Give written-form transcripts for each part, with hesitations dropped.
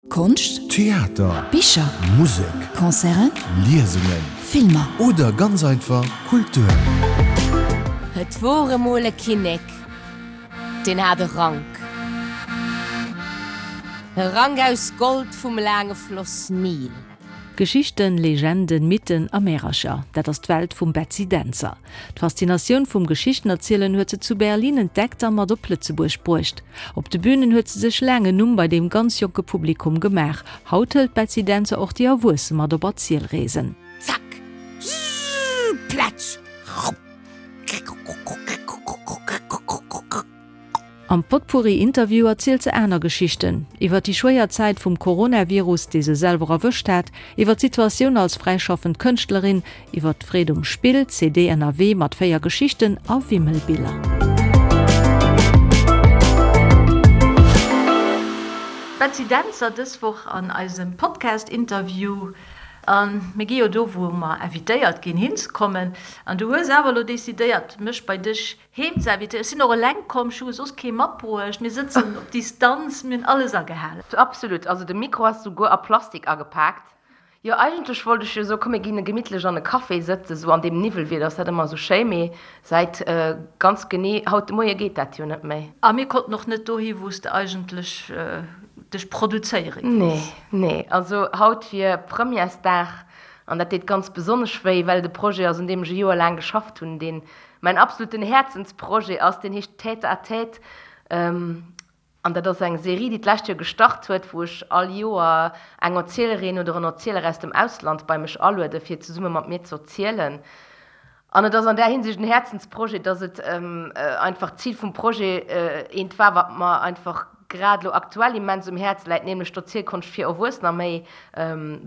Konscht, Theater, Bicher, Musek, Concerten, Liesungen, Filmer. Oder ganz einfach Kultur. Et wor emol e Kinnek, deen hat e Rank. E Rank aus Gold vum laange Floss Nil. Geschichten, Legenden, Mythen a Märercher, dat ass d'Welt vum Betsy Dentzer. D'Faszinatioun vum Geschichtenerzielen huet se zu Berlin entdeckt a mat op Lëtzebuerg bruecht. Op de Bünen huet se sech laang en Numm bei deem ganz jonke Publikum gemaach. Haut hëlt d'Betsy Dentzer och déi Erwuesse mat op Erzielreesen. Zack, zzzz, plätsch, rupp, krrkrrkrrkrrkrrkrrkrrkrrk. Am Potpourri-Interview erzielt se aner Geschichten, iwwer déi schwéier Zäit vum Coronavirus, dee se selwer erwëscht hat, iwwer d'Situatioun als fräischaffend Kënschtlerin, iwwer d'Freed um Spill, CD Ënnerwee mat 4 Geschichten a Wimmelbiller. Betsy Dentzer dës Woch an eisem Podcast-Interview. A mir gi jo do, wou mer invitéiert ginn, hinzekommen. An du hues awer elo decidéiert, mech bei dech Heem ze invitéieren. Ech sinn och eleng komm, ech hu soss kee matbruecht. Mir sëtzen op Distanz, mir hunn alles agehalen. Absolut, also de Mikro ass souguer a Plastik agepaakt. Jo, eigentlech wollt ech jo soen, komm mir ginn gemittlech an e Café sëtzen, sou an deem Niwwelwieder ass dat ëmmer sou schéi, mee säit ganz genee haut de Moie geet dat jo net méi. A mir konnten och net dohi wou s de eigentlech dech produzéiere gees. Nee, nee, also haut wier Premièresdag an dat deet ganz besonnesch wéi, well et e Projet ass un deem ech e Joer laang geschafft hunn, deen Mäin absoluten Häerzensprojet ass, deen heescht Tête à tête an dat ass eng Serie, déi d'lescht Joer gestart huet, wou ech all Joer eng Erzielerin oder en Erzieler aus dem Ausland bei mech aluede fir zesumme mat mir z'erzielen. An et ass an där Hinsicht en Häerzensprojet, dass et einfach d'Zil vum Projet eent war, wat mer einfach grad elo aktuell immens um Häerz läit, nämlech d'Erzielkonscht fir Erwuessener méi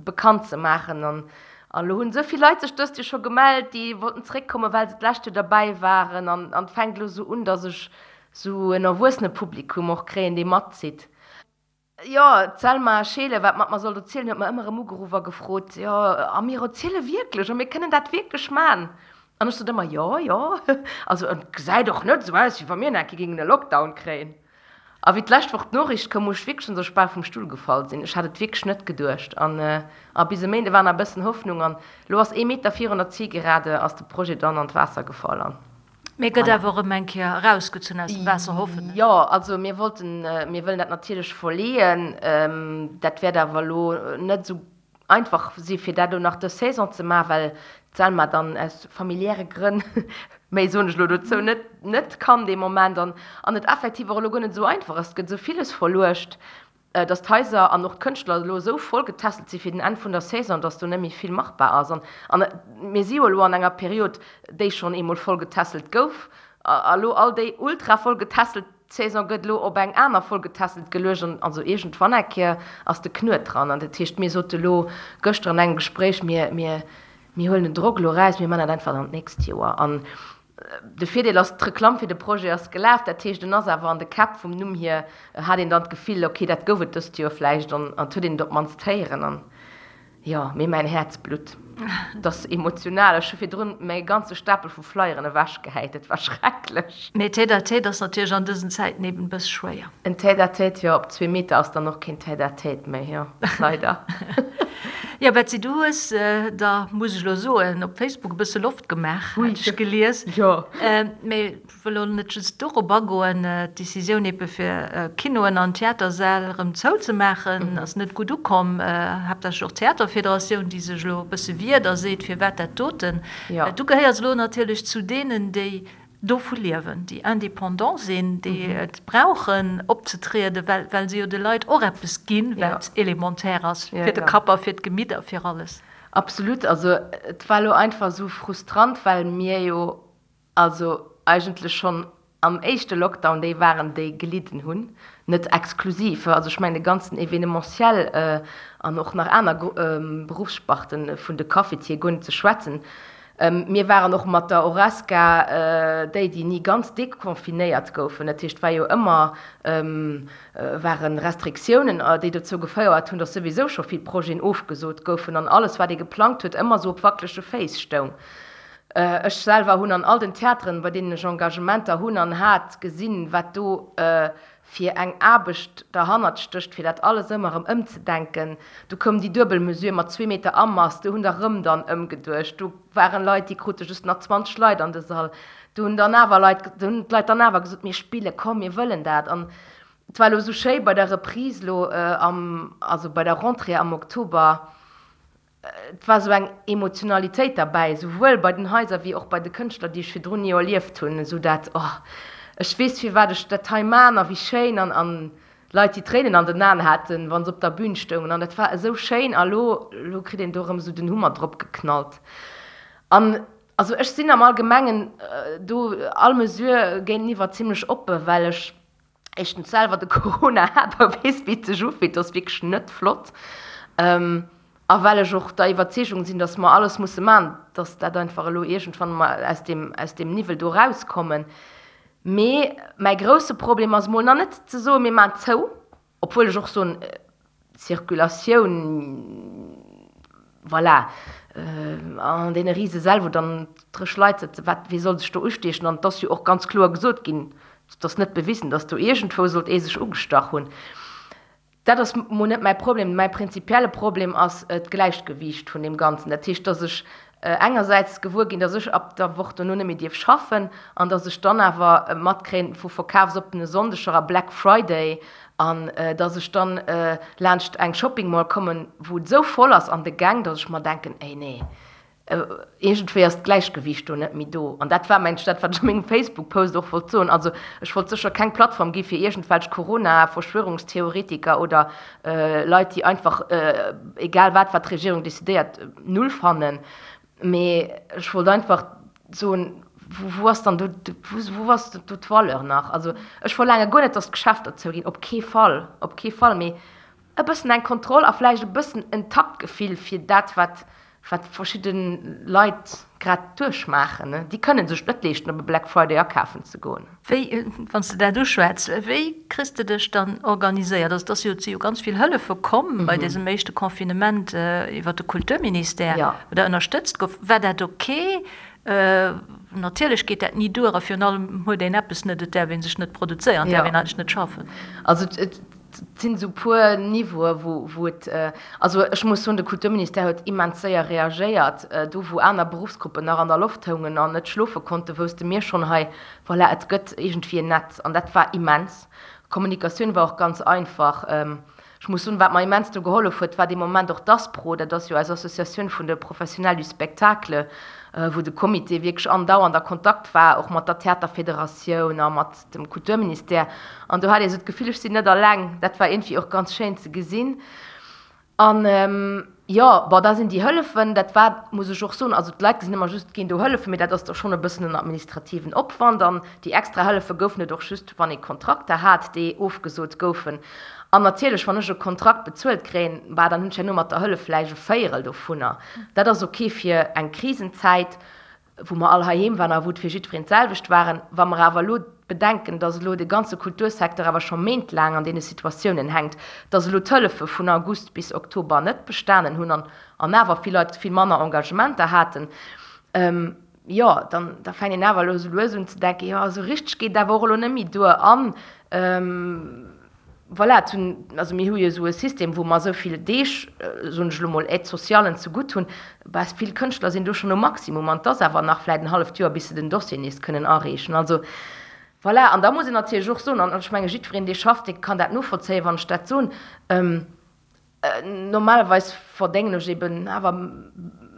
bekannt ze maachen. An An elo hunn esou vill Leit sech dëst Joer scho gemellt, déi wollten zeréckkommen, well se d'lescht Joer derbäi waren. An et fänkt elo esou un, datt ech esou en Erwuessenepublikum och kréien, dee matzitt. Jo, d'Selma Scheele, wat mat mer sollt erzielen, huet mer ëmmer erëm ugeruff a gefrot, Jo, a mir erziele wierklech a mir kënnen dat wierklech man? An ech sot ëmmer, Jo, jo, also et gesäit och net esou aus, wéi wa mir nach eng Kéier géingen e Lockdown kréien. A wéi d'lescht Woch d'Noriicht koum, muss ech wierklech schonns ech bal vum Stull gefall sinn. Ech hat et wierklech net geduecht. An a bis e Méinde war nach e bëssen Hoffnung. An elo ass ee Meter virun der Zielgerade ass de Projet dann an d'Waasser gefall. An Mee gëtt voilà. awer erëm eng Kéier erausgezunn aus dem Waasser, hoffen ech. Jo, also mir wollten, mir wëllen dat natierlech verleeën. Dat wäert awer elo net esou Einfach si fir dat elo nach dës Saison ze maachen, well d'Selma dann aus familiäre Grënn, méi soen ech elo dozou net, net kann dee Moment an an et effektiv och elo guer net esou einfach ass. Et gëtt esou villes verluecht, datt d'Haiser an och d'Kënschtler elo esou voll getässelt si fir den Enn vun der Saison, datt do net méi vill machbar ass. An an mir si jo elo an enger Period, déi schonn eemol voll getässelt gouf a elo all déi ultra voll getässelt D'Saison gëtt elo op eng aner voll getässelt geluecht an also iergendwann eng Kéier ass de Knuet dran. An dat heescht, mir sote elo gëschter an engem Gespréich, mir, mir, mir huelen den Drock elo eraus, mir man dat einfach dann d'nächst Joer. An de Virdeel ass, d'Reklamm fir de Projet ass gelaf, dat heescht, en ass awer an de Käpp vum Numm hier, hat een dann d'Gefill, okay, dat gouf et dëst Joer vläicht an et huet een et op d'mannst héieren. An Jo, mee mäin Häerz blutt. Et ass emotional. Ech hu virdrun mäi ganze Stapel vu Flyeren ewechgehäit. Et war schrecklech. Mee Tête-à-tête ass natierlech an dësen Zäiten eben e bësse schwéier. En Tête-à-tête, jo, op zwee Meter ass dann och keen Tête-à-tête méi, jo, leider. Jo, Betsy, du hues der, muss ech elo soen, op Facebook e bësse Loft gemaach, hat ech gelies. Jo. Mee Wëll elo net just dorop agoen. D'Decisioun ebe fir Kinoen an Theatersäll erëm zouzemaachen ass net gutt ukomm. Haaptsächlech och d'Theaterfederatioun, déi sech elo e bësse wiert a seet, firwat dat doten. Du gehéiers elo natierlech zu deenen, déi dovu liewen, déi indépendant sinn, déi et brauchen opzetrieden, well well se jo de Leit och eppes ginn, wat élémentaire ass fir de Kapp a fir d'Gemitt a fir alles. Absolut. Also et war elo einfach esou frustrant, well mir jo Also eigentlech schonn am éischte Lockdown déi waren, déi gelidden hunn, net exklusiv, also ech mengen de ganzen Événementiel an och nach aner Beruffssparten, vun de Cafetier guer net ze schwätzen. Mir waren och mat der Horesca déi, déi ni ganz deconfinéiert goufen. Dat heescht, et war jo ëmmer, ware Restriktiounen, déi dozou gefouert hunn, datt souwisou scho vill Projeten ofgesot goufen an alles, wat ee geplangt huet, ëmmer esou op wackelege Féiss stoung. Ech selwer hunn an all den Theateren, bei deenen ech Engagementer hunn an hat, gesinn, wat do fir eng Aarbecht derhannert stécht, fir dat alles ëmmer erëm ëmzedenken. Du koum déi duebel Mesure mat zwee Meter Amass, do hunn der erëm dann ëmgeduecht. Do waren Leit, déi krute just nach 20 Leit an de Sall. Do hunn dann awer Leit, do hunn d'Leit dann awer gesot, mir spillen, komm, mir wëllen dat. An et war elo esou schéi bei der Reprise elo am, also bei der Rentrée am Oktober, Et war esou eng Emotionalitéit derbäi, esouwuel bei den Haiser wéi och bei de Kënschtler, déi ech virdrun ni erlieft hunn, esou dat, oh, ech weess firwat ech dat hei man a wéi schéin an an Leit, déi Tréinen an den Aen haten, wa se op der Bün stoungen an dat war esou schéin a lo, lo kritt een do erëm esou den Hummer drop geknallt an also ech sinn am Allgemengen do all Mesure géinteniwwer zimlech oppe well ech éischtens selwer de Corona hat a weess, wéi et sech ufillt, dat ass wierklech net flott. A well ech och der Iwwerzeegung sinn, datt mer alles musse maachen, datt dat einfach elo iergendwann emol aus deem, aus deem Niwwel do erauskommen. Mee mäi grousse Problem ass emol nach net ze soen, mir maachen zou, Obwuel ech och soen, d'Circulatioun, voilà, an deene Risesäll, wou dann dréch Leit sëtzen, wat, wee soll sech do ustiechen? An et ass jo och ganz kloer gesot ginn, et ass net bewisen, datt do iergendwou sollt ee sech ugestach hunn. Dat ass mol net mäi Problem. Mäi prinzipielle Problem ass d'Gläichgewiicht vun deem Ganzen. Dat heescht, datt ech engersäits gewuer ginn, datt ech ab der Woch dono net méi dierf schaffen an datt ech dann awer matkréien vu verkafsoppene Sonndeger a Black Friday an datt ech dann laanscht eng Shopping Mall kommen, wou et esou voll ass an de Gäng, datt ech mer denken, Ey nee, iergendwéi ass d'Gläichgewiicht do net méi do. An dat war mengt ech dat, wat ech a mengem Facebook-Post och wollt soen. Also ech wollt sécher keng Plattform gi fir iergendwelch Corona-Verschwörungstheoretiker oder Leit, déi einfach egal wat, wat d'Regierung decidéiert, null fannen. Mee ech wollt einfach soen, wou ass dann do, wou ass do d'Valeur nach? Also ech verlaange guer net, datt d'Geschäfter zouginn, op kee Fall, op kee Fall. Mee e bëssen eng Kontroll a vläicht e bëssen en Taktgefill fir dat, wat wat verschidde Leit grad duerchmaachen. Déi kënne sech et net leeschten, op e Black Friday akafen ze goen. Wéi, wann s de dat uschwätz, wéi kriss de dech dann organiséiert? Also et ass jo, et si jo ganz vill Hëllefe komm bei dësem éischte Confinement iwwer de Kulturministère, wou der ënnerstëtzt gouf. War dat ok? Natierlech geet dat ni duer a virun allem huet een eppes net, et däerf ee sech net produzéieren, et däerf een eigentlech net schaffen. Also et sinn esou puer Niveaue wou wou et, also ech muss soen, de Kulturministère huet immens séier reagéiert. Do wou aner Beruffsgruppen nach an der Loft houngen an net schlofe konnten, wousste mir schonn hei, voilà, et gëtt iergendwéi en Netz an dat war immens. D'Kommunikatioun war och ganz einfach. Ech muss soen, wat mer immens do gehollef huet, war dee Moment och d'ASPRO, dat ass jo eis Associatioun vun de Professionnels du spectacle, wou de Comité wierklech andauernd a Kontakt war, och mat der Theaterfederatioun a mat dem Kulturministère. An do hat ee sou d'Gefill, ech sinn net alleng. Dat war iergendwéi och ganz schéin ze gesinn. An jo, bon, da sinn déi Hëllefen, dat war, muss ech och soen, also d'Leit gesinn ëmmer just, et ginn do Hëllefen, mee dat ass da schonn e bëssen en administrativen Opwand. An déi extra Hëllefe goufen et och just, wann ee Kontrakter hat, déi ofgesot goufen. An natierlech, wann ech e Kontrakt bezuelt kréien, bah, dann hunn ech herno mat der Hëllef vläicht e Véierel dovunner. Dat ass ok fir eng Krisenzäit. wou mer all heiheem waren a wou et fir jiddwereen d'selwecht waren. Wa mer awer elo bedenken, dass elo de ganze Kultursecteur awer scho méintlaang an deene Situatiounen hänkt, dass elo d'Hëllefe vun August bis Oktober net bestanen hunn an an awer vill Leit vill manner Engagementer haten, jo, dann da fänkt een awer elo esou lues un ze denken, jo, esou richteg geet et awer och elo net méi duer an Voilà, et hunn, also mir hu jo esou e System, wou mer esou vill Deeg, soen ech elo mol, Aide-socialen zegutt hunn. Bah, vill Kënschtler sinn do schonn um Maximum an et ass awer nach vläicht en halleft Joer, bis se den Dossier nees kënnen areechen. Also, voilà, an da muss een natierlech och soen, an ech menge jiddwereen, dee schafft, dee kann dat novollzéien, wann ech dat soen, normalerweis verdéngen ech eben awer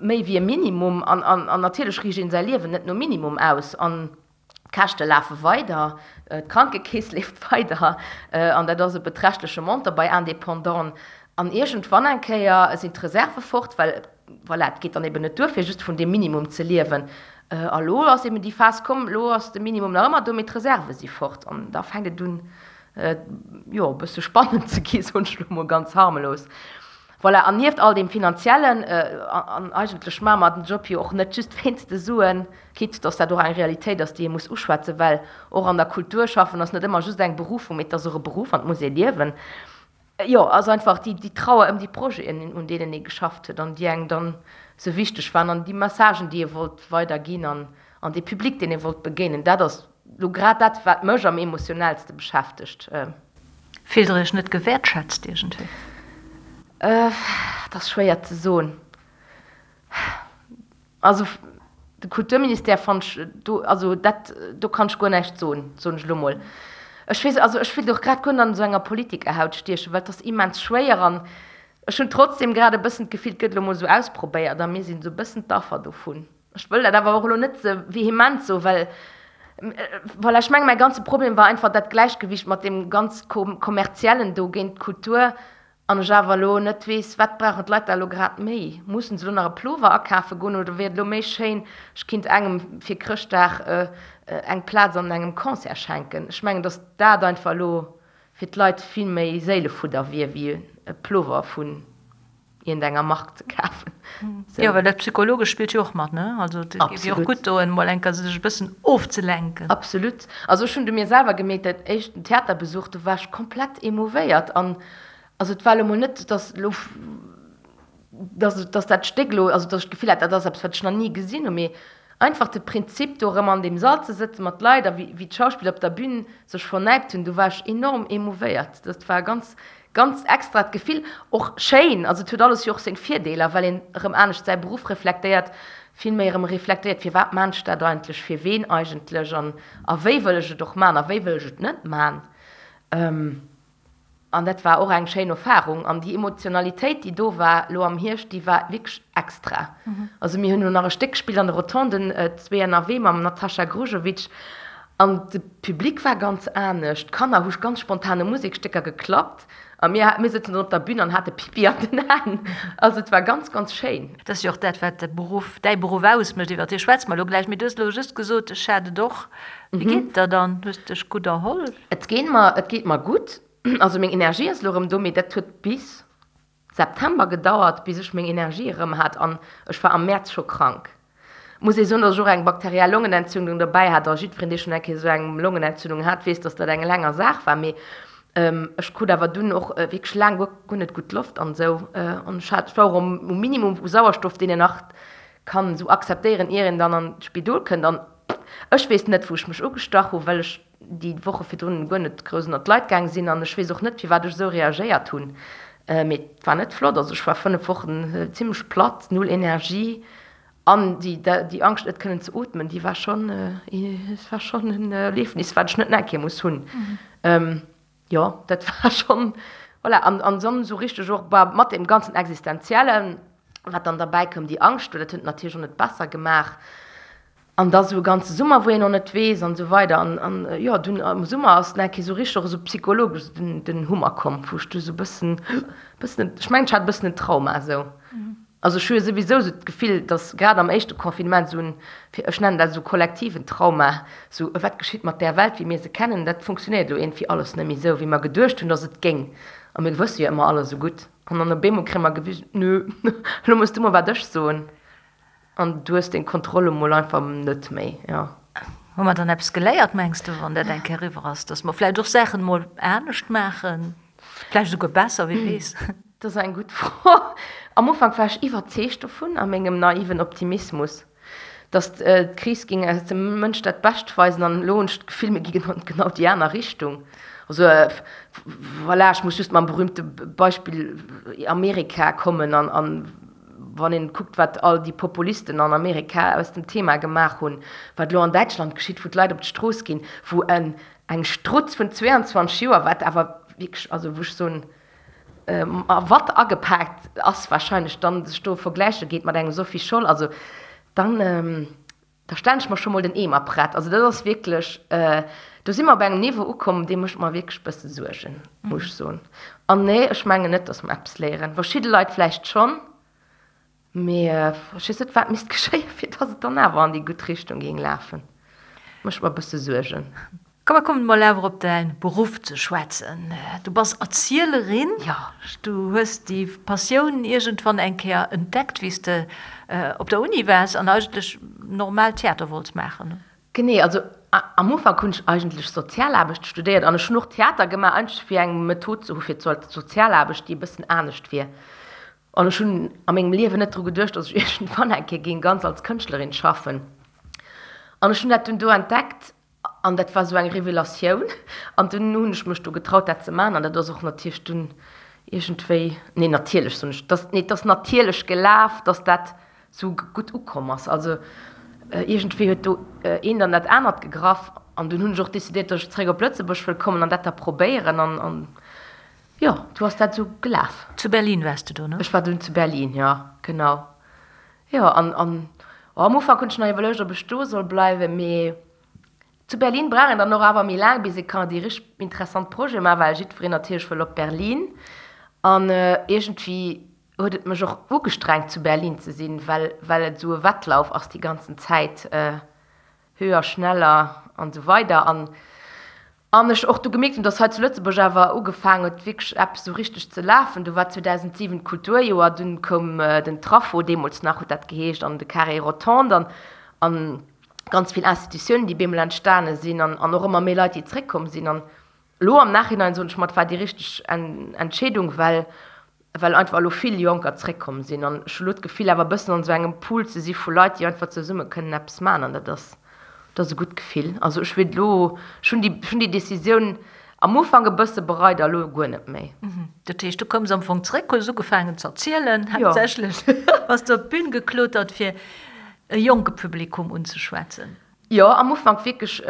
méi wéi e Minimum an, an natierlech riicht een säi Liewen net nom Minimum aus. An D'Käschte lafe weider, d'Krankekeess leeft weider an dat ass e beträchtleche Montant bei Indépendanten. An iergendwann eng Kéier sinn d'Reserve fort, well voilà, et geet dann eben net duer, fir just vun deem Minimum ze liewen. A lo ass eben déi Phas komm, lo ass de Minimum nach ëmmer do, mee d'Reserve si fort. An da fänkt et un, jo, e bësse spannend ze gi, soen ech lo mol ganz harmlos. Voilà, an nieft all deem Finanziellen, an eigentlech maache mer den Job jo och net just wéinst de Suen, quitte dass dat och eng Realitéit ass, déi ee muss uschwätzen, well och an der Kultur schaffen ass net ëmmer just eng Berufung, mee et ass och e Beruff an et muss ee liewen. Jo, ass einfach déi, déi Trauer ëm déi Projeten, un deenen ee geschafft huet an déi engem dann esou wichteg waren an déi Messagen, déi ee wollt weiderginn an, an dee Public, deen ee wollt begéinen. Dat ass elo grad dat, wat mech am emotionellste beschäftegt. Fillt Der Iech net gewäertschätzt iergendwéi? Dat ass schwéier ze soen. Also de Kulturministère fannen ech do, also dat, do kann ech guer näischt soen, soen ech elo mol. Ech weess, also ech wéilt och grad guer net an esou enger Politikerhaut stiechen, well et ass immens schwéier an ech hunn trotzdem grad e bëssen d'Gefill, et gëtt elo mol esou ausprobéiert a mir sinn esou e bëssen d'Affer dovun. Ech wëll dat awer och elo net ze vehement soen, well, voilà, ech mengen, mäi ganze Problem war einfach dat Gläichgewicht mat deem ganz Kommerziellen do géint d'Kultur An ech awer elo net weess, wat brauchen d'Leit da elo grad méi? Mussen se elo nach e Plover akafe goen oder wier et elo méi schéin, ech kinnt engem fir Chrëschtdag eng Plaz an engem Concert schenken? Ech mengen, datt dat einfach elo fir d'Leit vill méi Séilefudder wier, wéi e Plover vun iergendenger Mark ze kafen. Jo, well dat Psychologescht spillt jo och mat, ne? Also et géif jo och gutt doen, mol eng Kéier sech e bëssen ofzelenken. Absolut. Also ech hunn du mir selwer gemierkt, dat éischten Theaterbesuch, do war ech komplett emouvéiert an also et war elo mol net, dass elo, dass, dass dat Stéck elo, also dass ech d'Gefill hat, dat ass eppes, wat ech nach ni gesinn hunn, mee einfach de Prinzip, do erëm an deem Sall ze sëtzen mat Leit a wéi, wéi d'Schauspiller op der Bühn sech vernäipt hunn, do war ech enorm emouvéiert. Dat war ganz, ganz extrat Gefill, och schéin, also et huet alles jo och seng Virdeeler, well een erëm anescht säi Beruff reflektéiert, vill méi erëm reflektéiert, firwat maan ech dat eigentlech, fir ween eigentlech an a wéi wëll ech et och maan a wéi wëll ech et net maan. An dat war och eng schéin Erfarung an déi Emotionalitéit, déi do war elo am Hierscht, déi war wierklech extra. Also mir hunn elo nach e Stéck gespillt an de Rotonden, Zwee ënnerwee mam Natasha Grujovic an de Public war ganz anescht, d'Kanner hu ganz spontan u Musekstécker geklappt a mir, mir sëtzen dann op der Bün an hate Pipi an den Aen. Also et war ganz, ganz schéin. Dat ass jo och dat, wat de Beruff, däi Beruff ausmécht, iwwer dee schwätze mer elo gläich. Mee du hues elo just gesot, ech hat et och. Wéi geet et der dann? Hues de dech gutt erholl? Et geet mer, et geet mer gutt. Also meng Energie ass elo erëm do, mee dat huet bis September gedauert, bis ech meng Energie erëm hat an ech war am Mäerz scho krank. Muss ee soen, datt ech och eng bakteriell Longenentzündung dobäi hat a jiddwereen, dee schonn eng Kéier esou eng Longenentzündung hat, weess, datt dat eng länger Saach war. Mee ech krut awer dunn och wierklech laang guer, guer net gutt Loft an esou an ech hat, ech war och um Minimum u Sauerstoff, deen een nach kann esou akzeptéieren, ier een dann an d'Spidol kënnt. An ech weess net, wou ech mech ugestach hu, well ech déi Woche virdrun guer net grouss ënnert d'Leit gaang sinn an ech weess och net, firwat ech esou reagéiert hunn, mee et war net flott. Also ech war 5 Wochen zimmlech platt, null Energie an déi déi Angscht net kënnen ze ootmen, déi war schonn, et war schonn en Erliefnis, wat ech net nach eng Kéier muss hunn. Jo, dat war schonn, voilà, an an dann esou richteg och bah mat deem ganzen Existenziellen, wat dann derbäi koum, déi Angscht, dat huet et natierlech och net besser gemaach. An da sou e ganze Summer, wou een och net weess an esou weider. An, an jo, dunn am Summer ass nach eng Kéier sou richteg och esou psychologesch esou den, den Hummer komm, wou ech du sou e bëssen, bëssen, ech mengen, ech hat e bëssen en Trauma esou. Also ech hu jo souwisou sou d'Gefill, datt grad am éischte Confinement esou en, fir, ech nennen dat esou kollektiven Trauma, sou wat geschitt mat där Welt, wéi mir se kennen, dat funktionéiert elo iergendwéi alles net méi esou, wéi mer geduecht hunn, datt et géing. A mir wësse jo ëmmer alles esou gutt. An dann op eemol kréie mer gewisen, nö, elo muss du mol wat ech soen. An du hues deng Kontroll emol einfach net méi, jo. Hu mer dann eppes geléiert, mengs de, wann dat eng Kéier eriwwer ass, dass mer vläicht och Saachen emol anescht maachen, vläicht esouguer besser, wie weess? Dat ass eng gutt Fro. Am Ufank war ech iwwerzeegt dovun, a mengem naiven Optimismus, dass d'Kris géing eis dem Mënsch dat Bescht weisen. An elo hunn ech d'Gefill, mir gi genau déi aner Richtung. Also voilà, ech muss just mam berühmte Beispill Amerika kommen an Wann een kuckt, wat all déi Populisten an Amerika aus dem Thema gemaach hunn, wat elo an Däitschland geschitt, wou d'Leit op d'Strooss ginn, wou en eng Strutz vun 22 Joer, wat awer wierklech, also wou ech soen, a Watt agepaakt ass wahrscheinlech, dann sech do vergläiche geet mat engem Sophie Scholl, also dann, da stellen ech mer scho mol den Eemer prett. Also dat ass wierklech, do si mer op engem Niveau ukomm, dee mécht mer wierklech e bësse Suergen, muss ech soen. An nee, ech mengen net, datt mer eppes léieren. Verschidde Leit vläicht schonn, mee ech weess net, wat misst geschéien, fir datt et dann awer an déi gutt Richtung géing lafen. Mécht mer e bësse Suergen. Komm mer kommen mol awer op däin Beruff ze schwätzen. Du bass Erzielerin. Jo. Du hues déi Passioun iergendwann eng Kéier entdeckt, wéi s de op der Uni waars an eigentlech normal Theater wollts maachen. Genee, also. Am Ufank hunn ech eigentlech Sozialaarbecht studéiert an ech hunn och Theater gemaach, eigentlech fir eng Method ze hu fir d'Sozialaarbecht, déi e bëssen anescht wier. An ech hunn a mengem Liewen net dru geduecht, datt ech iergendwann eng Kéier géing ganz als Kënschtlerin schaffen. An ech hunn dat dunn do entdeckt an dat war esou eng Revelatioun. An dunn hunn ech mech do getraut, dat ze maachen. An dat ass och natierlech dunn iergendwéi, nee natierlech soen ech, dass, nee et ass natierlech gelaf, datt dat sou gutt ukomm ass. Also iergendwéi huet do eent an dat anert gegraff an dunn hunn ech och decidéiert, datt ech zeréck op Lëtzebuerg wëll kommen an dat da probéieren an an jo, du ass dat sou gelaf. Zu Berlin waars de do, ne? Ech war dunn zu Berlin, jo, genau. Jo, an an oh, am Ufank hunn ech nach iwwerluecht, ob ech do soll bleiwen, mee zu Berlin brauch een dann och awer méi laang, bis ee kann déi richteg interessant Projete maachen, well jiddwereen natierlech wëll op Berlin an iergendwéi huet et mech och ugestrengt zu Berlin ze sinn, well well et esou e Wettlauf ass déi ganzen Zäit, höher, schneller an esou weider an an ech och du gemierkt hunn, dass hei zu Lëtzebuerg awer ugefaangen huet wierklech eppes esou richteg ze lafen. Du war 2007 d'Kulturjoer, dunn koum den Traffo, deemools nach huet dat geheescht, an de Carré Rotonde an an ganz vill Institutiounen, déi bemol entstane sinn an an och ëmmer méi Leit, déi zréckkomm sinn an elo am Nachhinein soen ech mer, et war déi richteg Entscheedung, well well einfach elo vill Jonker zréckkomm sinn an ech hu lo d'Gefill awer e bëssen an esou engem Pool ze si vu Leit, déi einfach zesumme kënnen eppes maachen an dat ass, dat ass e gutt Gefill. Also ech wier elo, ech hunn déi, ech hunn déi Decisioun am Ufank e bësse bereit a lo guer net méi. Dat heescht, du koums am Fong zréck, hues ugefaangen ze erzielen, haaptsächlech bass du op d'Bün geklotert fir e jonke Publikum unzeschwätzen. Jo, am Ufank wierklech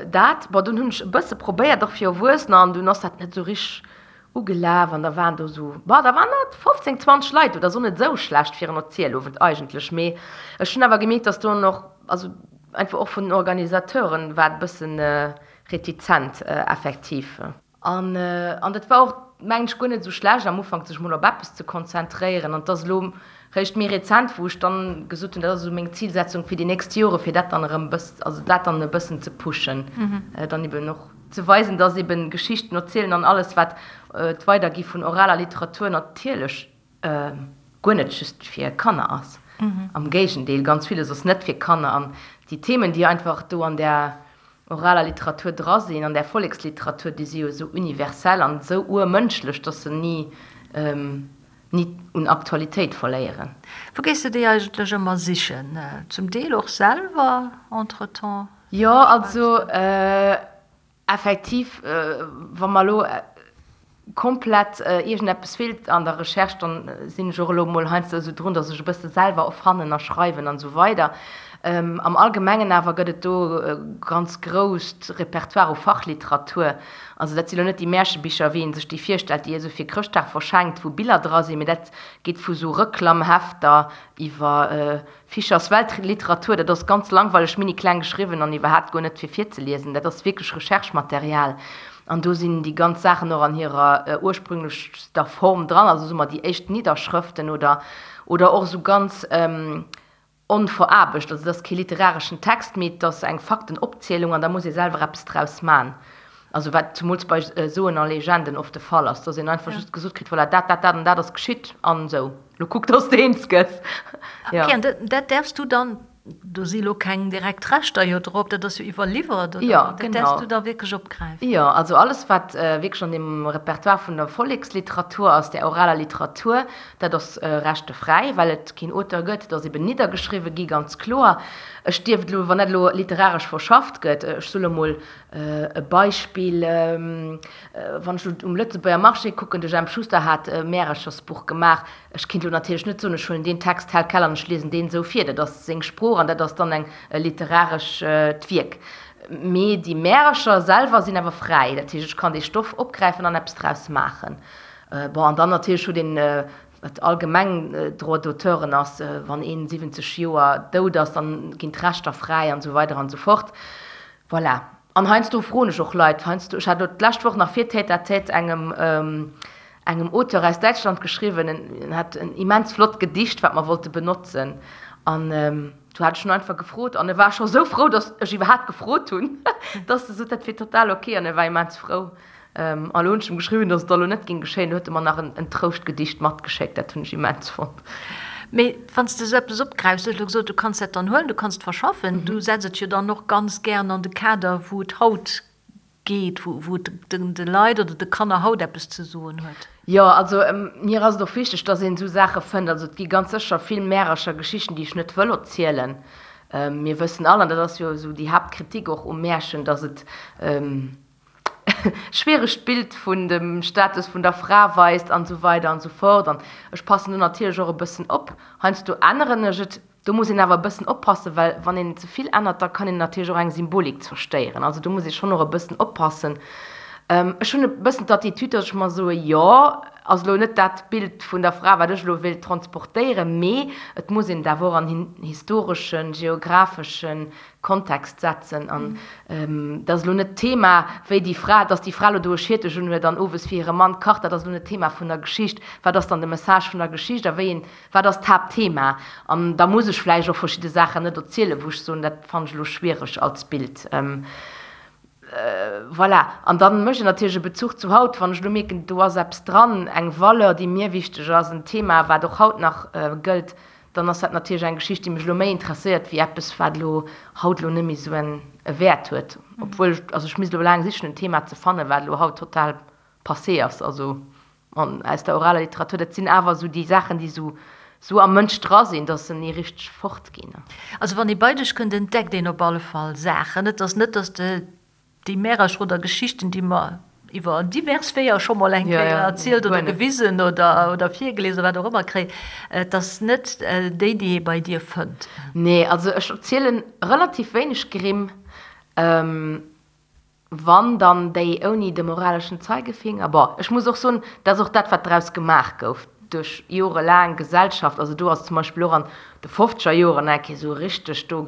dat. Bon, dunn hunn ech e bësse probéiert, och fir Erwuessener, an dunn ass dat net esou richteg ugelaf an da waren do esou, bon, da waren dat 15, 20 Leit do, dat ass och net esou schlecht fir en Erzielowend eigentlech. Mee ech hunn awer gemierkt, dass do och, also einfach och vun den Organisateuren war et e bëssen retizent effektiv. An an dat war och, mengen ech, guer net esou schlecht am Ufank, sech mol op eppes ze konzentréieren. An et ass elo réischt méi rezent, wou ech dann gesot hunn, dat ass esou meng Zilsetzung fir déi nächst Jore, fir dat dann erëm e bëss, also dat dann e bëssen ze pushen, dann eben och ze weisen, dass eben Geschichten erzielen an alles, wat d'Weidergi vun oraler Literatur natierlech guer net just fir Kanner ass. Am Géigendeel, ganz villes ass net fir Kanner. An déi Themen, déi einfach do an där oraler Literatur dra sinn, an där Volleksliteratur, déi si jo esou universell an esou urmënschlech, dass se ni, ni un Aktualitéit verléieren. Wou gees de déi eigentlech ëmmer sichen? Zum Deel och selwer entretemps? Jo, also Effektiv, wa mer elo komplett iergendeppes feelt an der Recherche, dann sinn ech och elo emol heiansdo esou drun, datt ech e bësse selwer erfannen a schreiwen an esou weider. Am Allgemengen awer gëtt et do e ganz grousst Repertoire u Fachliteratur. Also dat si lo net déi Märchebicher, wéi ee sech déi virstellt, déi ee sou fir Chrëschtdag verschenkt, wou Biller dra sinn, mee dat geet vu sou Reklamhefter iwwer Fischers Weltliteratur, dat ass ganz langweileg, mini kleng geschriwwen an iwwerhaapt guer net fir virzeliesen. Dat ass wierklech Recherchematerial an do sinn déi ganz Saachen och an hirer ursprünglechster Form dran, also soe mer déi éischt Nidderschrëften oder oder och esou ganz onveraarbecht. Also et ass kee literareschen Text, mee et ass eng Faktenopzielung an da muss ee selwer eppes draus man. Also wat zumools bei Soen a Legenden oft de Fall ass, dass een einfach just gesot kritt, voilà, dat, dat, dat an dat ass geschitt an esou, lo kuck, dass de eens gëss. Ja. Okay, an dat däerfs du dann, do si lo keng direkt Rechter jo drop, dat ass jo iwwerliwwert, oder? Ja, genau. Dat däerfs du da wierklech opgräifen? Jo, also alles, wat wierklech an deem Repertoire vun der Volleksliteratur ass, där oraler Literatur, dat ass rechtefräi, well et keen Auteur gëtt, et ass eben niddergeschriwwe gi, ganz kloer. Ech dierft elo, wann dat elo literaresch verschafft gëtt, ech soe lo mol, E Beispill, wann ech elo um Lëtzebuerger Marché kucken, de Jemp Schuster hat e Märechersbuch gemaach. Ech kinnt elo natierlech net soen, ech huelen deen Text tel quel an ech liesen deen esou vir. Dat ass seng Sprooch an dat ass dann eng e literarescht Wierk. Mee déi Märecher selwer sinn awer fräi. Dat heescht, ech kann dee Stoff opgräifen an eppes draus maachen. Bon, an dann natierlech huet een, wat allgemeng Droit d'auteuren ass, wann een 70 Joer dout ass, dann ginn d'Rechter fräi an esou weider an esou fort. Voilà. An heiansdo froen ech och Leit, heiansdo, ech hat elo d'lescht Woch nach fir Tête à Tête engem, engem Auteur aus Däitschland geschriwwen, en hat en immens flott Gedicht, wat mer wollte benotzen. An du hat ech en einfach gefrot an e war scho sou frou, datt ech iwwerhaapt gefrot hunn, datt e sot, dat wier total ok an e war immens frou. An elo hunn ech em geschriwwen, datt et da elo net géing geschéien. Du huet e mer nach en Trouschtgedicht matgeschéckt, dat hunn ech immens fonnt. Mee wann s de esou eppes opgräifs, du hues elo gesot, du kanns dat dann huelen, du kanns et verschaffen, du setz et jo dann och ganz gären an de Kader, wou et haut geet, wou et de Leit oder de Kanner haut eppes ze soen huet. Jo, also mir ass et och wichteg, dass een esou Saache fënnt. Also et gi ganz sécher vill Märercher, Geschichten, déi ech net wëll erzielen. Mir wëssen all, an dat ass jo esou déi Haaptkritik och um Märchen, dass et schwieregt Bild vun dem Status vun der Fra weist an esou weider an esou fort. An ech passen do natierlech och e bëssen op. Heiansdo änneren ech et. Do muss een awer e bëssen oppassen, well wann een ze vill ännert, da kann een natierlech och eng Symbolik zerstéieren. Also do muss ee schonn och e bëssen oppassen. Ech hunn e bëssen d'Attitude, datt ech mer soe, jo, ass elo net dat Bild vun der Fra, wat ech elo wéilt transportéieren, mee et muss een et awer och an en historeschen, geographeschen Kontext setzen. An dat ass elo net d'Thema, wéi déi Fra, datt déi Fra elo do e Schiertech unhuet an owes fir hire Mann kacht, dat ass elo net d'Thema vun der Geschicht. Wat ass dann de Message vun der Geschicht a wéi een Wat ass d'Haaptthema? An da muss ech vläicht och verschidde Saachen net erzielen, wou ech soen, dat fannen ech elo schwiereg als Bild. Voilà. An da mécht een natierlech e Bezuch zu haut, wann ech elo mierken, do ass eppes dran, eng Valeur, déi mir wichteg ass, en Thema, wat och haut nach gëllt, dann ass dat natierlech eng Geschicht, déi mech elo méi interesséiert wéi eppes, wat elo haut elo net méi esou e Wäert huet. Obwuel ech, also ech misst elo laang sichen, en Thema ze fannen, wat elo haut total passé ass. Also An aus der oraler Literatur, dat sinn awer esou déi Saachen, déi esou, esou am Mënsch dra sinn, dass se ni richteg fortginn. Also wann ee bei dech kënnt, entdeckt een op alle Fall Saachen. Et ass net, dass de déi Märercher oder Geschichten, déi mer iwwer divers Weeër scho mol eng Kéier erzielt oder gewisen oder, oder virgelies oder wat och ëmmer kréien, et ass net déi, déi ee bei dir fënnt. Nee, also ech erzielen relativ wéineg Grimm. Wann, dann déi ouni de moraleschen Zeigefinger. Bon, ech muss och soen, dat ass och dat, wat draus gemaach gouf duerch jorelaang Gesellschaft. Also do ass zum Beispill och an de fofzeger Joren eng Kéier esou richteg, do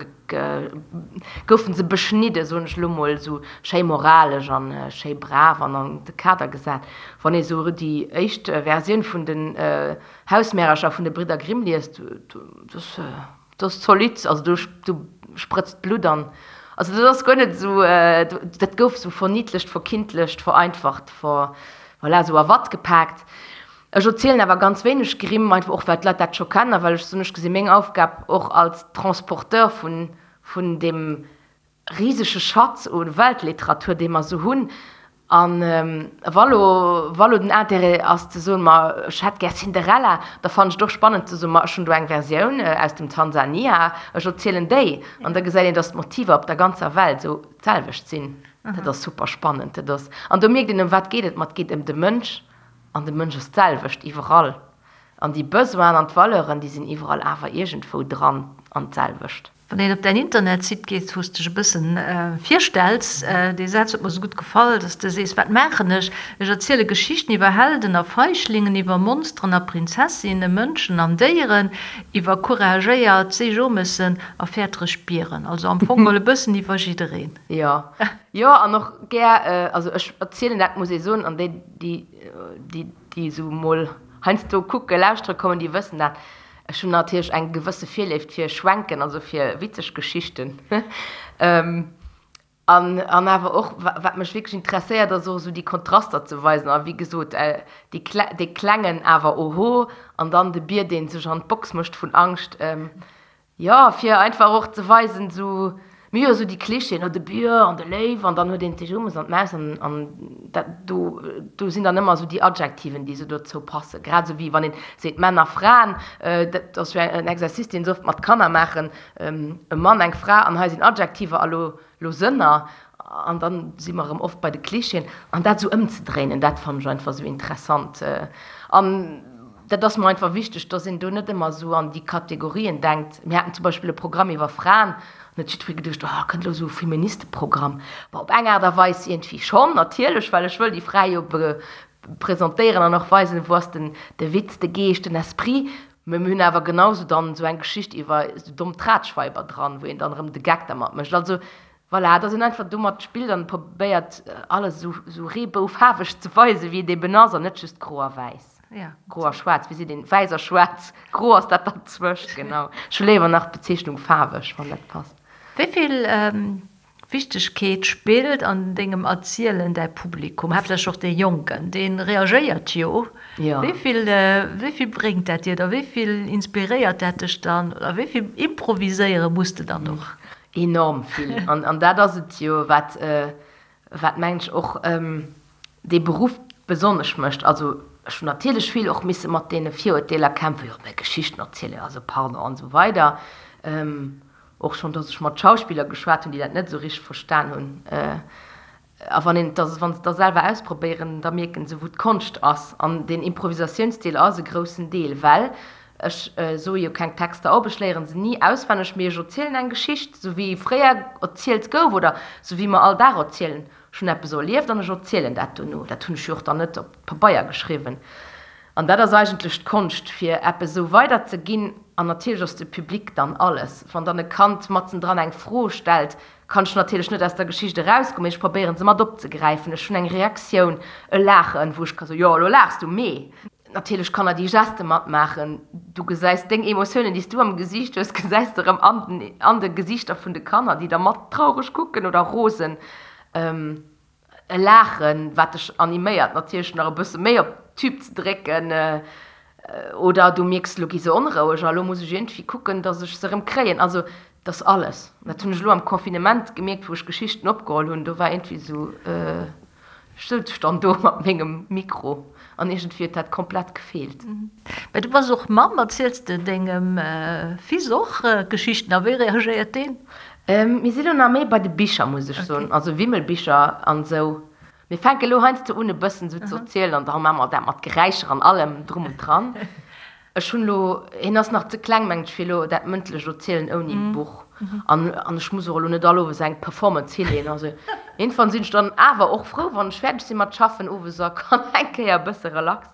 goufe se beschnidde, soen ech elo mol, esou schéi moralesch an schéi brav an an de Kader gesat. Wann ee sou déi éischt Versioun vun den Hausmärercher vun de Bridder Grimm liest, do ass. Dat ass zolidd, also do do sprëtzt d'Blutt an, also dat ass guer net esou, dat gouf esou verniddlecht, verkindlecht, vereinfacht, ver, voilà, esou a Watt gepaakt. Ech erzielen awer ganz wéineg Grimm, einfach och well d'Leit dat scho kennen a well ech soen, ech gesi meng Aufgab och als Transporteur vun vun deem risege Schatz u Weltliteratur, dee mer esou hunn. A wa lo, wa lo den Intérêt ass ze soen, ma ech hätt gär Cinderella, da fannen ech et och spannend ze soen, ma ech hunn do eng Versioun aus dem Tansania, ech erzielen déi. An da gesäit een, datt d'Motiver op der ganzer Welt esou d'selwecht sinn. Dat ass super spannend. Dat ass, an do mierkt een, ëm wat geet et? Ma et geet ëm de Mënsch, an de Mënsch ass d'selwecht iwwerall. An déi Besoinen an d'Valeuren, déi sinn iwwerall awer iergendwou dran an d'selwecht. Wann een op däin Internetsite geet, wou s de dech e bëssen virstells, dee Saz huet mer esou gutt gefall, dass de sees, Wat maachen ech? Ech erziele Geschichten iwwer Helden a Feichlingen, iwwer Monsteren a Prinzessinnen, Mënschen an Déieren, iwwer couragéiert Seejomessen a fäertereg Bieren. Also am Fong mol e bëssen iwwer jiddereen. Jo, jo, an och gär, also ech erzielen dat, muss ee soen, an déi, déi, déi, déi esou mol heiansdo kucke, lauschtere kommen, déi wëssen dat, Ech hunn natierlech eng gewësse Virléift fir Schwenken, also fir witzeg Geschichten. An, an awer och, wat mech wierklech interesséiert, ass och esou déi Kontraster ze weisen. A wéi gesot, déi Kle, dee Klengen awer oho, an dann de Bier, dee sech an d'Box mécht vun Angscht. Jo, fir einfach och ze weisen, esou, mir hu jo esou déi Klischeeën, oh de Bier an de Léiw an dann huet een d'Ejomes an d'Maus an, an dat do, do sinn dann ëmmer esou déi Adjektiven, déi esou dozou passen. Grad esou wéi wann een seet Männer, Fraen, dat ass jo en Exercice, deen se oft mat Kanner maachen, e Mann, eng Fra an hei sinn Adjektiver a lo, lo Sënner an dann si mer erëm oft bei de Klischeeën. An dat esou ëmzedréinen, dat fannen ech einfach esou interessant. An dat ass mer einfach wichteg, dass een do net ëmmer esou an déi Kategorien denkt. Mir haten zum Beispill e Programm iwwer Fraen, an huet jiddweree geduecht, oh, kënnt elo esou e Feministeprogramm. Bon, op eng Aart a Weis iergendwéi schonn, natierlech, well ech wëll déi Frae jo presentéieren an och weisen, wou ass den de Witz, de Geescht, den Esprit. Mä mir hunn awer genau esou dann esou eng Geschicht iwwer esou domm Tratschweiber dran, wou een dann erëm de Geck dermat mécht. Also voilà, dass een einfach domat spillt an probéiert, alles esou esou reeboufaarweg ze weisen, wéi et eben ass, an net just gro a wäiss. Ja. Gro a schwaarz, wéi seet een? Wäiss a schwaarz. Gro ass dat derzwëscht, genau. Ech hu léiwer nach d'Bezeechnung faarweg, wann dat passt. Wéi vill. Wichtegkeet spillt an dengem Erzielen däi Publikum, haaptsächlech och dee Jonken, dee reagéiert jo. Wéi vill, wéi vill bréngt dat dir da, wéi vill inspiréiert dat dech dann oder wéi vill improviséiere muss de dann och? Enorm vill. An dat ass et jo, wat, wat mengen ech och dee Beruff besonnesch mécht. Also ech hunn natierlech vill och misse mat deene Virurteeler kämpfen, jo mä Geschichten erzielen, also pardon an esou weider. Och schonn, datt ech mat Schauspiller geschwat hunn, déi dat net esou richteg verstan hunn. A wann een et da, wa se et da selwer ausprobéieren, da mierken se, wou d'Konscht ass. An deen Improvisatiounsdeel ass e groussen Deel, well ech soe jo keng Texter op, ech léiere se ni auswenneg, mee ech erzielen eng Geschicht, esou wéi fréier erzielt gouf oder esou wéi mer all Dag erzielen. Ech hunn eppes erlieft an ech erzielen dat dono. Dat hunn ech jo och dann net op Pabeier geschriwwen. An dat ass eigentlech d'Konscht, fir eppes esou weiderzeginn. An natierlech ass de Public dann alles. Wann dann e Kand matzendran eng Fro stellt, kann ech natierlech net aus der Geschicht erausgoen, mee ech probéieren se mat opzegräifen. Ech hunn eng Reaktioun, e Laachen, wou ech ka soen, jo, elo laachs du, mee natierlech Kanner déi Geste matmaachen. Du gesäis deng Emotiounen, déi s du am Gesiicht hues, gesäis de erëm an de Gesiichter vun de Kanner, déi da mat traureg kucken oder rosen. E Laachen, wat dech animéiert natierlech nach e bësse méi op d'Tube ze drécken, oder du mierks, elo gi se onroueg a elo muss ech iergendwéi kucken, datt ech se erëm kréien. Also et ass alles. Dat hunn ech elo am Confinement gemierkt, wou ech Geschichten opgeholl hunn, do war iergendwéi esou, ech souz dann do mat mengem Mikro an iergendwéi huet dat komplett gefeelt. Mä du bass och Mamm, erziels de dengem Fils och Geschichten a wéi reagéiert deen? Mir si lo nach méi bei de Bicher, muss ech soen, also Wimmelbicher an esou. Mir fänke lo heiansdo un e bëssen esou ze erzielen an da maache mer dat mat Geräischer an allem drum und dran. Ech hunn elo, hien ass nach ze kleng, mengen ech, fir elo dat mëndlecht Erzielen ouni Buch. An an ech muss och elo net all Owes eng Performance hileeën. Also iergendwann sinn ech dann awer och frou, wann ech fäerdeg si mat schaffen owes a kann eng Kéier e bësse relax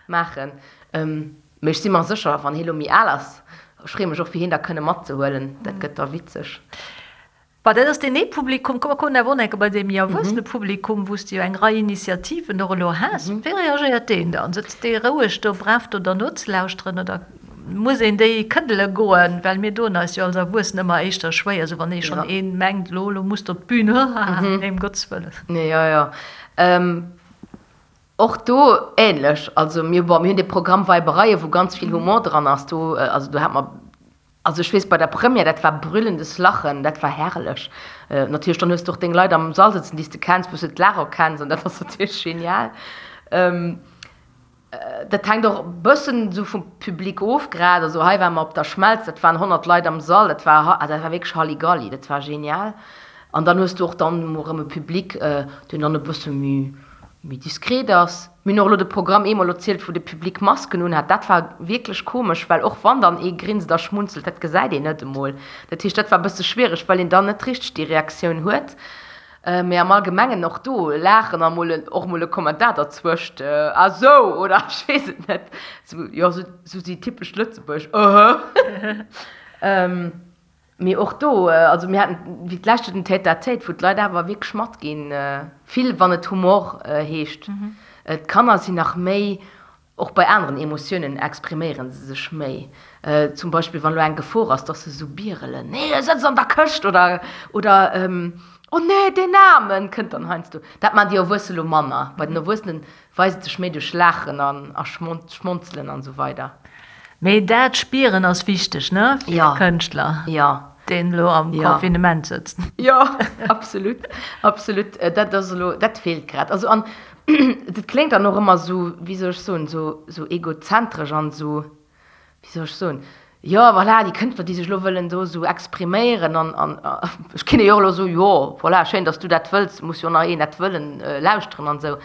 maachen. Mee ech si mer sécher, wann hie lo méi al ass, ech freeë mech och fir hien da kënne matzehuelen, dat gëtt da witzeg. Bon, dat ass deen ee Publikum. Komm, mer kommen awer och nach eng Kéier bei dee méi erwuessene Publikum, wou s de jo eng Rei Initiativen och elo has. Wéi reagéiert deen dann? Sëtzt dee roueg do brav do der nozelauschteren oder muss een déi këddele goen? Well mir doen eis jo als Erwuessen ëmmer éischter schwéier, esou wann ee schonn ee mengt, elo, elo muss de op d'Bün, haha, nee, ëm Gottes Wëllen. Jo, jo. Och do ähnlech, also mir, bon, mir hunn dee Programm Weibereien, wou ganz vill Humor dran ass, do, also do hat mer, also ech weess bei der Première, dat war brüllendes Lachen, dat war herrlech. Natierlech dann hues de och deng Leit am Sall sëtzen, déi s de kenns, wou s de d'Laach erkenns an dat ass natierlech genial. Dat hänkt och e bëssen esou vum Public of grad, also hei ware mer op der Schmelz, dat waren 100 Leit am Sall, dat war, dat war wierklech Halligalli, dat war genial. An dann hues de och dann emol erëm e Public, deen dann e bësse méi, méi diskret ass. Mir hunn och elo de Programm eemol erzielt, wou de Public Masken unhat. Dat war wierklech komesch, well och wann dann ee grinst a schmunzelt, dat gesäit een net emol. Dat heescht, dat war e bësse schwiereg, well een dann net richteg déi Reaktioun huet. Mee am Allgemengen och do laachen a mol och mol e Kommentar derzwëscht, ah sou oder ech weess et net, sou jo, sou déi typesch Lëtzebuerg, öhö. Mee och do, also mir haten wéi d'lescht Joer den Tête-à-tête, wou d'Leit awer wierklech matginn, vill wann et Humor heescht. D'Kanner sinn nach méi, och bei aneren Emotiounen expriméiere se sech méi. Zum Beispill wann elo eng Gefor ass, dass se esou bierelen, Nee, e sëtzt an der Këscht! oder oder Oh nee, deen Aarmen! kënnt dann heiansdo. Dat maachen déi Erwuesse lo manner. Bei den Erwuessenen weist et sech méi duerch Laachen an a Schmonzelen an esou weider. Mee dat Spieren ass wichteg, ne, fir e Kënschtler, deen elo am Confinement sëtzt. Jo, absolut, absolut. Dat ass elo, dat feelt grad. Also an dat kléngt dann och ëmmer esou, wéi soll ech soen, esou egozentresch an esou, wéi soll ech soen, jo voilà, déi Kënschtler, déi sech elo wëllen do esou expriméieren an, an ech kinne jo och elo soen, jo voilà, schéin, datt s du dat wëlls, muss jo nach een dat wëllen lauschteren an esou.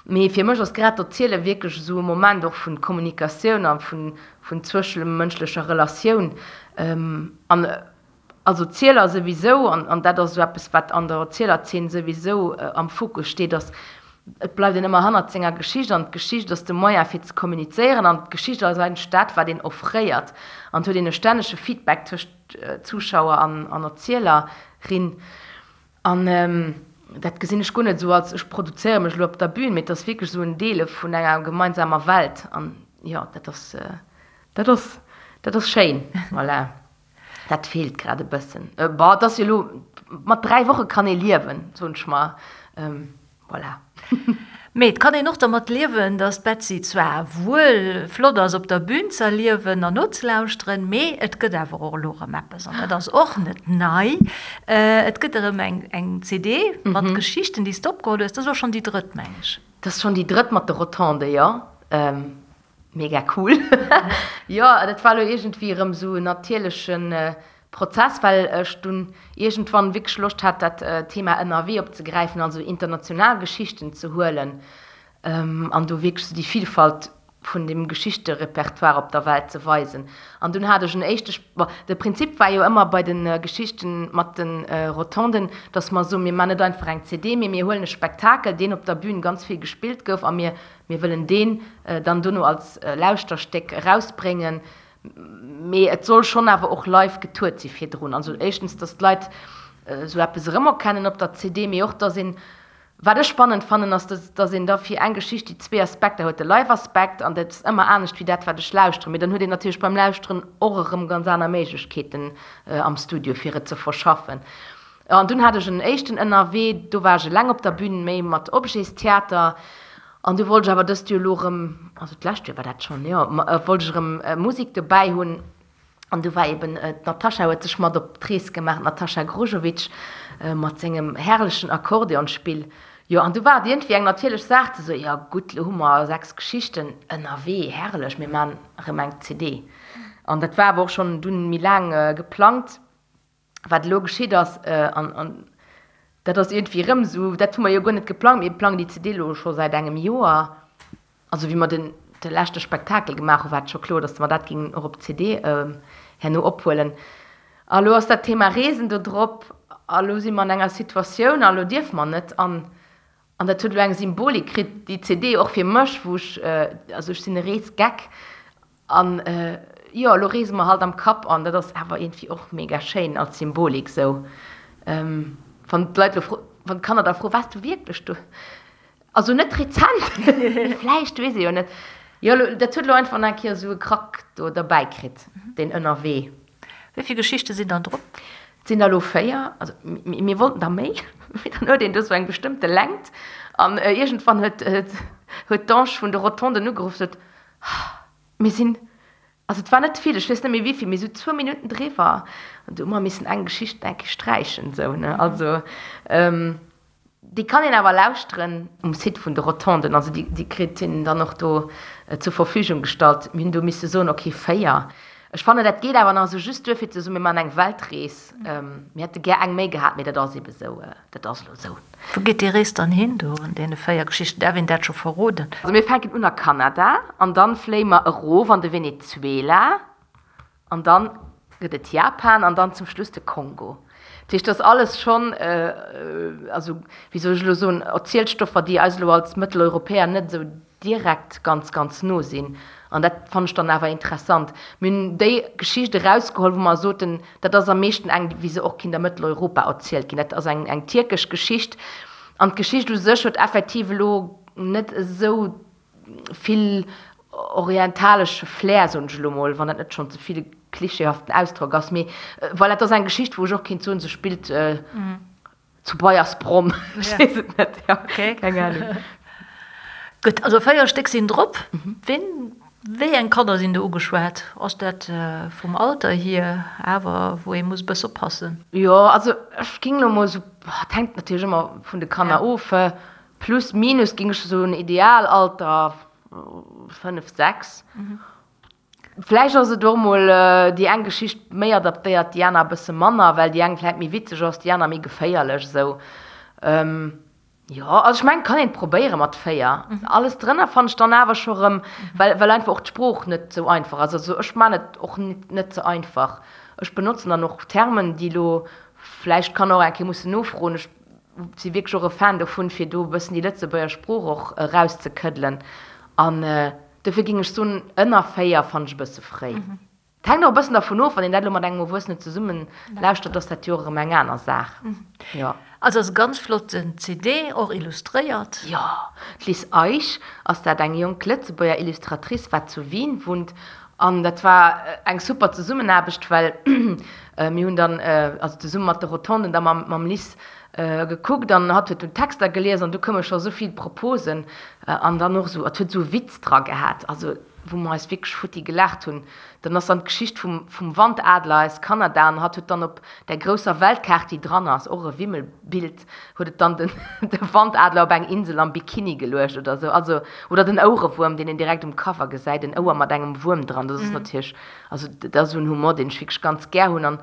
Mee fir mech ass grad d'Erziele wierklech esou e Moment och vun Kommunikatioun a vun, vun zwëschemënschlecher Relatioun. An als Erzieler souwisou, an, an dat ass esou eppes, wat an der Erzielerzeen souwisou am Fokus steet, ass, et bleift een ëmmer hannert senger Geschicht an d'Geschicht ass de Moyen fir ze kommunizéieren an d'Geschicht ass eigentlech dat, wat een offréiert an et huet een e stännege Feedback tëscht Zuschauer an, an Erzieler, rin. An dat gesinn ech guer net esou als ech produzéiere mech elo op der Bühn, mee et ass wierklech esou en Deele vun enger gemeinsamer Welt. An jo, dat ass, dat ass, dat ass schéin. Voilà. Dat feelt grad e bëssen. Bon, et ass jo elo, mat 3 Woche kann ee liewen, soen ech mer. Voilà. Mee et kann een och dermat liewen, dass d'Betsy zwar wuel flott ass op der Bühn z'erliewen an nozelauschteren, mee et gëtt awer och elo erëm eppes, an dat ass och net nei, et gëtt erëm eng CD mat Geschichten, déi s de opgeholl hues. Dat ass elo schonn déi drëtt, meng ech. Dat ass schonn déi drëtt mat de Rotonde, jo. Mega cool. Jo, dat war elo iergendwéi erëm esou en natierleche Prozess, well ech dunn iergendwann wierklech Loscht hat, dat Thema ënnerwee opzegräifen, also international Geschichten ze huelen an do wierklech esou déi Vilfalt vun dem Geschichterepertoire op der Welt ze weisen. An dunn hat ech en éischte, bon, de Prinzip war jo ëmmer bei de Geschichten mat de Rotonden, dass mer soen, mir man net einfach eng CD, mee mir huelen e Spektakel, deen op der Bühn ganz vill gespillt gouf a mir Mir wëllen deen dann dono als Lauschterstéck erausbréngen, mee et soll schonn awer och live getourt si virdrun. Also éischtens, dass d'Leit esou eppes erëmerkennen op der CD, mee och, dass een, wat ech spannend fannen, ass, dass een da fir eng Geschicht déi zwee Aspekter huet, de Live-Aspekt, an dat ass ëmmer anescht wéi dat, wat ech lauschteren, mee dann huet een natierlech beim Lauschteren och erëm ganz aner Méiglechkeeten am Studio, fir et ze verschaffen. An dunn hat ech en éischten ënnerwee, do war ech eleng op der Bühn, méi mat Objetstheater. An du wollt ech awer dëst Joer elo erëm, also d'lescht Joer war dat schonn, jo, wollt ech erëm Musek dobäi hunn. An du war eben d'Natascha huet sech mat op d'Rees gemaach, d'Natascha Grujovic mat sengem herrlechen Akkordeonspill. Jo, an du war et iergendwéi eng natierlech Saach ze soen, jo gutt, elo hu mer 6 Geschichten ënnerwee, herrlech, mir maachen erëm eng CD. An dat war awer och schonn dunn méi laang geplangt. Wat elo geschitt ass, an dat ass iergendwéi erëm esou, dat hu mer jo guer net geplangt, mir plangen déi CD elo scho säit engem Joer. Also wéi mer den de leschte Spektakel gemaach hu war et scho kloer, datt mer dat géingen och op CD herno ophuelen. A elo ass dat Thema Reesen do drop a elo si mer an enger Situatioun a elo dierfe mer net. An an dat huet elo eng Symbolik kritt, déi CD, och fir mech, wou ech, also ech sinn e Reesgeck An jo, elo reese mer halt am Kapp an dat ass awer iergendwéi och mega schéin als Symbolik sou. Wann d'Leit elo fro, wann d'Kanner da froen, Waars du wierklech do? Also net rezent, mee vläicht, weess ee jo net. Jo, elo, dat huet elo einfach nach eng Kéier esou e Krack do derbäi kritt, deen Ënnerwee. Wéi vill Geschichte sinn dann drop? Et sinn der elo 4, also mir wollten der méi, mee dann huet een do sou eng bestëmmte Längt an iergendwann huet huet d'Ange vun de Rotonden ugeruff, sot, Mir sinn, also et war net vill, ech weess net méi wéivill, mee esou zwou Minutten driwwer. An du hu mer missen eng Geschicht eng Kéier sträichen, esou, ne. Also déi kann een awer lauschteren um Site vun de Rotonden, also déi, déi kritt een dann och do zur Verfügung gestallt. Mir hunn do misse soen, okay, 4. Ech fannen, dat geet awer nach esou just duer fir ze soen, mir maachen eng Weltrees. Mir hätte gär eng méi gehat, mee dat ass ebe esou, dat ass elo esou. Wou geet déi Rees dann hin do an deene 4 Geschichten? Däerf een dat scho verroden? Also mir fänken un a Kanada an dann fléie mer erof an de Venezuela an dann gëtt et Japan an dann zum Schluss de Kongo. Dat heescht, dat ass alles schonn, also wéi soll ech elo soen, Erzielstoffer, déi eis elo als Mëtteleuropäer net esou direkt ganz, ganz no sinn. An dat fannen ech dann awer interessant. Mir hunn déi Geschicht erausgeholl, wou mer soten, dat ass am meeschten eng, wéi se och kinnt a Mëtteleuropa erzielt ginn. Dat ass eng, eng tierkesch Geschicht. An d'Geschicht u sech huet effektiv elo net esou vill orientalesche Flair, soen ech elo mol, wann dat net schonn ze vill e klischeehaften Ausdrock ass. Mee voilà, et ass eng Geschicht, wou ech och kinnt soen, se spillt, Zu Baiersbronn, ech weess et net, jo, keng Ahnung. Gutt, also 4 Stéck sinn drop. Ween, wéi eng Kanner sinn do ugeschwat? Ass dat vum Alter hier awer, wou ee muss e bësse oppassen? Jo, also ech géing elo mol esou, et hänkt natierlech ëmmer vun de Kanner of, plus minus géing ech soen Idealalter 5, 6. Vläicht ass et och mol déi eng Geschicht méi adaptéiert, déi aner e bësse manner, well déi eng vläicht méi witzeg ass, déi aner méi geféierlech esou. Jo, also ech mengen, et kann een et probéiere mat 4. Alles drënner fannen ech dann awer scho rëm, well well einfach och d'Sprooch net esou einfach ass. Also ech man et och net ze einfach. Ech benotzen dann och Termen, déi elo vläicht d'Kanner och eng Kéier mussen nofroen. Ech si wierklech och e Fan dovun, fir do e bëssen déi Lëtzebuerger Sprooch och erauszekëddelen an Dofir géing ech soen, ënner 4 fannen ech e bësse fréi. Et hänkt och e bëssen dervun of, wann een dat elo mat engem Erwuessenen zesummen lauschtert, ass dat jo och erëm eng aner Saach. Jo. Also ass e ganz flotten CD, och illustréiert. Jo, d'Liz Eich ass dat, eng jonk Lëtzebuerger Illustratrice, wat zu Wien wunnt. An dat war eng super Zesummenaarbecht, well mir hunn dann, also zesumme mat de Rotonden, da mam Liz gekuckt an hatt huet dunn d'Texter gelies an du koume scho sou vill Proposen an dann och esou, et huet esou e Witz dra gehat, also wou mer eis wierklech futti gelaacht hunn. Dann ass dann d'Geschicht vum vum Wandadler aus Kanada an hatt huet dann op där grousser Weltkaart, déi dran ass, och e Wimmelbild, huet et dann den de Wandadler op eng Insel am Bikini geluecht oder sou, also oder den Ouerewuerm, deen een direkt um Cover gesäit, en Ouer mat engem Wuerm dran, dat ass natierlech, also dat ass esou en Humor, deen ech wierklech ganz gär hunn an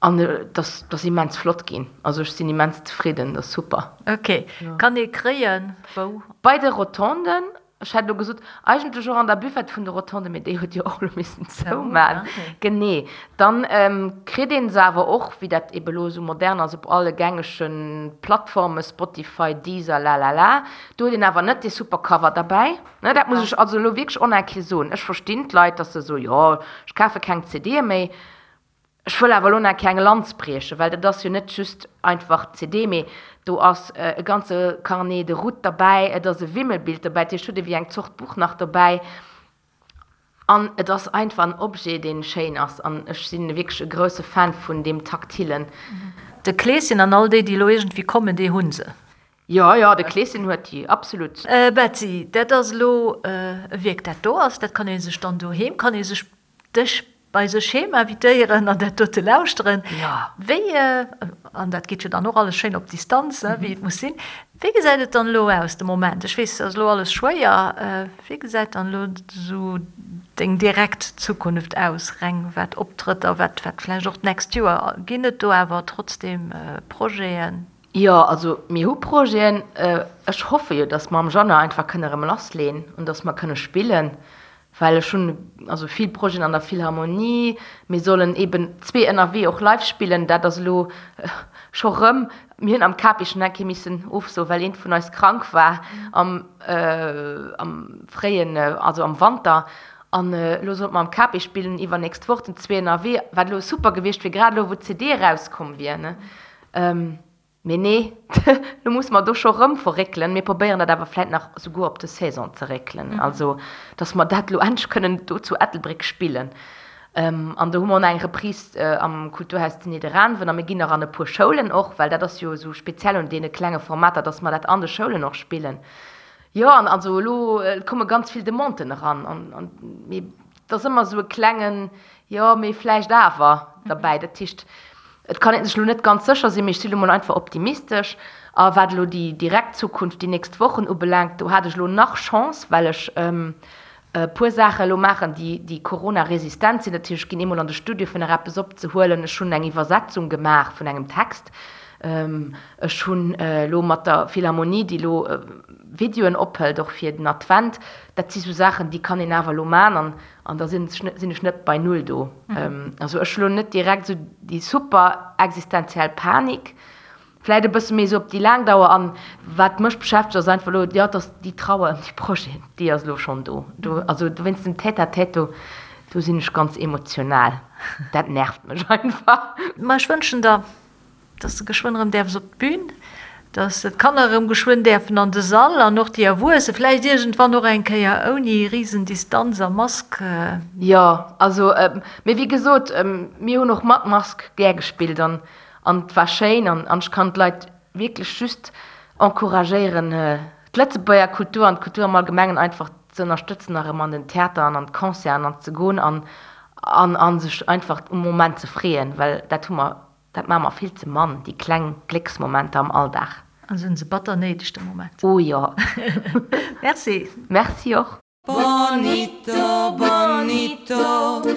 An et ass, ass immens flott ginn. Also ech sinn immens zefridden, dat ass super. Ok, kann ee kréien wou? Bei de Rotonden, ech hätt elo gesot, eigentlech och an der Buvette vun de Rotonden, mee déi huet jo och elo missen zouman. Genee. Dann kritt ee se awer och, wéi dat ebe elo esou modern ass, op alle gängege Plattformen, Spotify, Deezer, lalala. Do huet een awer net dee super Cover derbäi. Ne, dat muss ech also elo wierklech och nach eng Kéier soen. Ech verstinn d'Leit, datt se soen, jo, ech kafe keng CDe méi. Ech wëll awer elo nach keng Lanz briechen, well dat ass jo net just einfach d'CD, mee do ass e ganze Carnet de route derbäi, et ass e Wimmelbild derbäi, dat heescht, hutt ee wéi eng Zort Buch nach dobäi. An et ass einfach en Objet, dee schéin ass an ech si wierklech e grousse Fan vun deem Taktilen. De Kleeschen an all déi, déi elo iergendwéi kommen, déi hu se. Jo, jo, de Kleeschen huet déi, absolut. Betsy, dat ass elo e Wierk, dat do ass, dat kann ee sech dann doheem, kann ee sech dech bei sech heem invitéieren an dat dote lauschteren. Wéi, an dat geet jo dann och alles schéin op Distanz, wéi et muss sinn, wéi gesäit et dann elo aus de Moment? Ech weess, et ass elo alles schwéier. Wéi gesäit dann elo esou deng direkt Zukunft aus, reng wat Optrëtter, wat vläicht och d'nächst Joer? Ginn et do awer trotzdeem Projeten? Jo, also mir hu Projeten. Ech hoffe jo, datt mer am Januar einfach kënne erëm lassleen an datt mer kënne spillen. Well ech hunn also vill Projeten an der Philharmonie. Mir sollen eben zwee ënnerwee och live spillen. Dat ass elo scho rëm, mir hunn am Capi schonn eng Kéier missen ofsoen, well eent vun eis krank war am am fréien, also am Wanter. An elo sollte mer am Capi spillen iwwernächst Woch den zwee ënnerwee, wat elo super gewiescht wier, grad elo wou d'CD erauskomm wier, ne. Mee nee, lo musse mer do scho rëm verréckelen. Mir probéieren dat awer vläit nach souguer op de Saison ze réckelen, also datt mer dat elo endlech kënnen do zu Ettelbréck spillen. An do hu mer och nach eng Reprise am Kulturhaus zu Nidderaanwen a mir ginn nach an e puer Schoulen och, well dat ass jo esou speziell un deene klenge Formater, datt mer dat an de Schoulen och spillen. Jo, an also elo komme ganz vill Demanden eran an mee et ass ëmmer esou e klengen Jo, mee vläicht awer derbäi. Dat heescht, et kann ee sech elo net ganz sécher sinn, mee ech si lo mol einfach optimistesch. A wat elo déi direkt Zukunft, déi nächst Wochen ubelaangt, do hat ech elo nach Chance, well ech e puer Saache elo maachen, déi, déi Corona-resistent sinn. Dat heescht, ech ginn eemol an de Studio, fir nach eppes opzehuelen. Ech hunn eng Iwwersetzung gemaach vun engem Text. Ech hunn elo mat der Philharmonie, déi elo Videoen ophëlt, och fir den Advent. Dat si sou Saachen, déi kann een awer elo maachen. An da sinn ech net bei Null do. Also ech hu lo net direkt esou déi super existenziell Panik, vläit e bësse méi esou op déi laang Dauer. An wat mech beschäftegt ass einfach elo, jo, dass déi Trauer ëm déi Projeten, déi ass elo schonn do. Do, also wéinst dem Tête-à-tête do, do sinn ech ganz emotional. Dat nervt mech einfach. Ma ech wënschen der Dass de geschwënn erëm däerfs op d'Bün, dass d'Kanner erëm geschwënn däerfen an de Sall an och déi Erwuesse vläicht iergendwann och eng Kéier ouni Risendistanz a Mask. Jo, also, mee wéi gesot, mir hunn och mat Mask gär gespillt an an et war schéin an an ech kann d'Leit wierklech just encouragéieren, d'Lëtzebuerger Kultur an d'Kultur am Allgemengen einfach ze ënnerstëtzen a rëm an den Theater an an d'Concerten an ze goen an an a sech einfach um Moment ze freeën, well dat hu mer Dat maache mer vill ze mann, déi kleng Glécksmomenter am Alldag. An sinn se batter néideg de Moment. Oh jo. Merci. Merci och. Bonito, bonito.